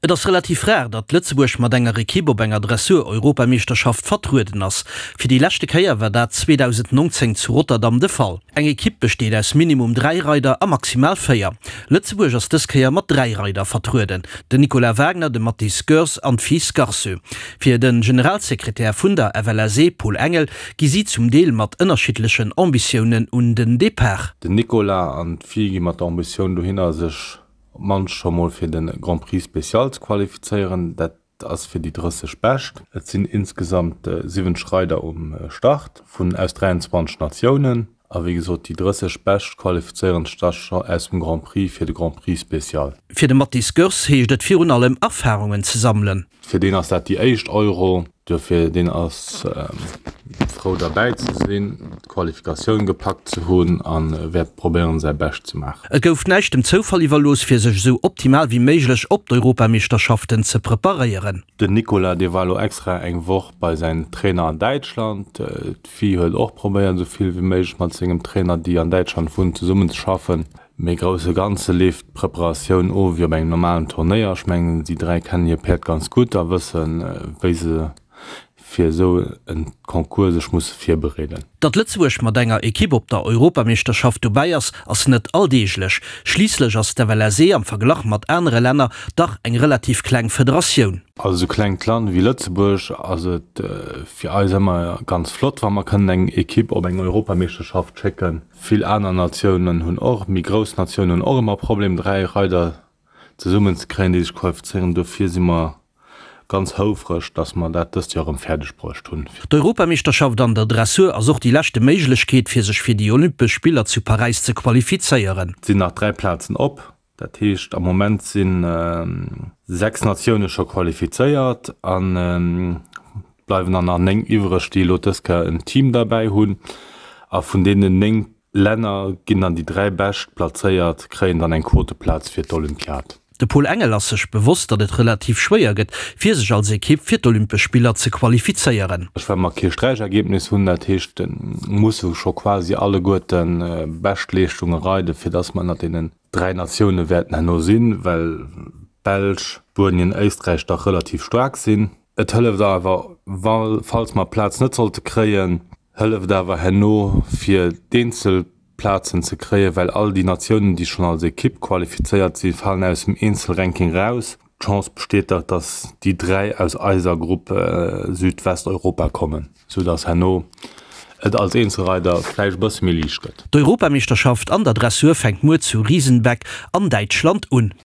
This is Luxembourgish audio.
Et ass relativ rar, datt Lëtzebuerg mat enger Ekipp op enger Dressur-Europameeschterschaft vertrueden ass. Fir déi leschte Kéier war dat 2019 zu Rotterdam de Fall. Eng Ekipp besteet aus minimum 3 Reider a maximal 4. Lëtzebuerg ass dës Kéier mat 3 Reider vertrueden, den Nicolas Wagner, de Mathis Goers an d'Fi Scarceux. Fir de Generalsekretär vun der FLSE, Paul Engel, gi si zum Deel mat ënnerschiddlechen Ambitiounen un den Depart. Den Nicolas an d'Fi gi mat der Ambitioun dohinner, sech op d'mannst scho mol fir de Grand Prix Spécial ze qualifizéieren. Dat ass fir déi 30 Bescht. Et sinn insgesamt 70 Reider um Start vun aus 23 Natiounen. A wéi gesot, déi 30 Bescht qualifizéieren sech da scho aus dem Grand Prix fir de Grand Prix Spécial. Fir de Mathis Goerss heescht et virun allem Erfarungen ze sammelen. Fir deen ass dat déi éischt Euro, duerfir deen ass frou derbäi ze sinn, d'Qualifikatioun gepackt ze hunn a wäert probéieren säi Bescht ze maachen. Et gouf näischt dem Zoufall iwwerlooss fir sech esou optimal wéi méiglech op d'Europameeschterschaften ze preparéieren. Den Nicolas dee war elo extra eng Woch bei säin Trainer an Däitschland. D'Fi huet och probéiert esou vill wéi méiglech mat sengem Trainer déi an Däitschland wunnt zesummen ze schaffen. Mee grousse Ganze leeft d'Preparatioun of wéi op engem normalen Turnéier. Ech mengen, déi 3 kennen hir Päerd ganz gutt a wëssen, wéi se fir esou en Concours sech musse virbereeden. Datt Lëtzebuerg mat enger Ekipp op der Europameeschterschaft dobäi ass, ass net alldeeglech. Schliisslech ass d'FLSE am Verglach mat anere Länner dach eng relativ kleng Federatioun. Als esou klengt Land wéi Lëtzebuerg ass et fir eis ëmmer ganz flott, wa mer kënnen eng Ekipp op eng Europameeschterschaft schécken. Vill aner Natiounen hunn och, méi grouss Natiounen hunn och ëmmer Problem 3 Reider zesummen ze kréien, déi sech qualifizéieren. Dofir si mer ganz houfreg, datt mer dat dëst Joer erëm fäerdeg bruecht hunn. D'Europameeschterschaft an der Dressur ass och déi leschte Méiglechkeet, fir sech fir déi Olympesch Spiller zu Paräis ze qualifizéieren. Et sinn nach 3 Plazen op. Dat heescht, am Moment si 6 Natioune scho qualifizéiert an et bleiwen der nach 9 iwwreg, déi elo dës Kéier en Team derbäi hunn. A vun deenen 9 Länner ginn dann déi 3 bescht plazéiert, kréien dann eng Quoteplaz fir d'Olympiad. De Paul Engel ass sech bewosst, datt et relativ schwéier gëtt, fir sech als Ekipp fir d'Olympesch Spiller ze qualifizéieren. Ech well mer kee Sträichergebnis hunn, dat heescht, musse scho quasi alleguerte Beschtleeschtunge reiden, fir datt mer ënnert deenen 3 Natioune wäerten herno sinn, well d'Belsch, Spuenien, Éisträich dach relativ staark sinn. Et hëlleft awer, wa falls mer d'Plaz net sollte kréien, hëlleft awer herno fir d'eenzel Plazen ze kréien, well all déi Natiounen, déi schonn als Ekipp qualifizéiert sinn, falen aus dem Eenzelranking raus. D'Chance besteet dach, dass déi 3 aus eiser Grupp Südwesteuropa kommen, sou dass herno et als Eenzelreider vläicht e bësse méi liicht gëtt. D'Europameeschterschaft an der Dressur fänkt muer zu Riesenbeck an Däitschland un.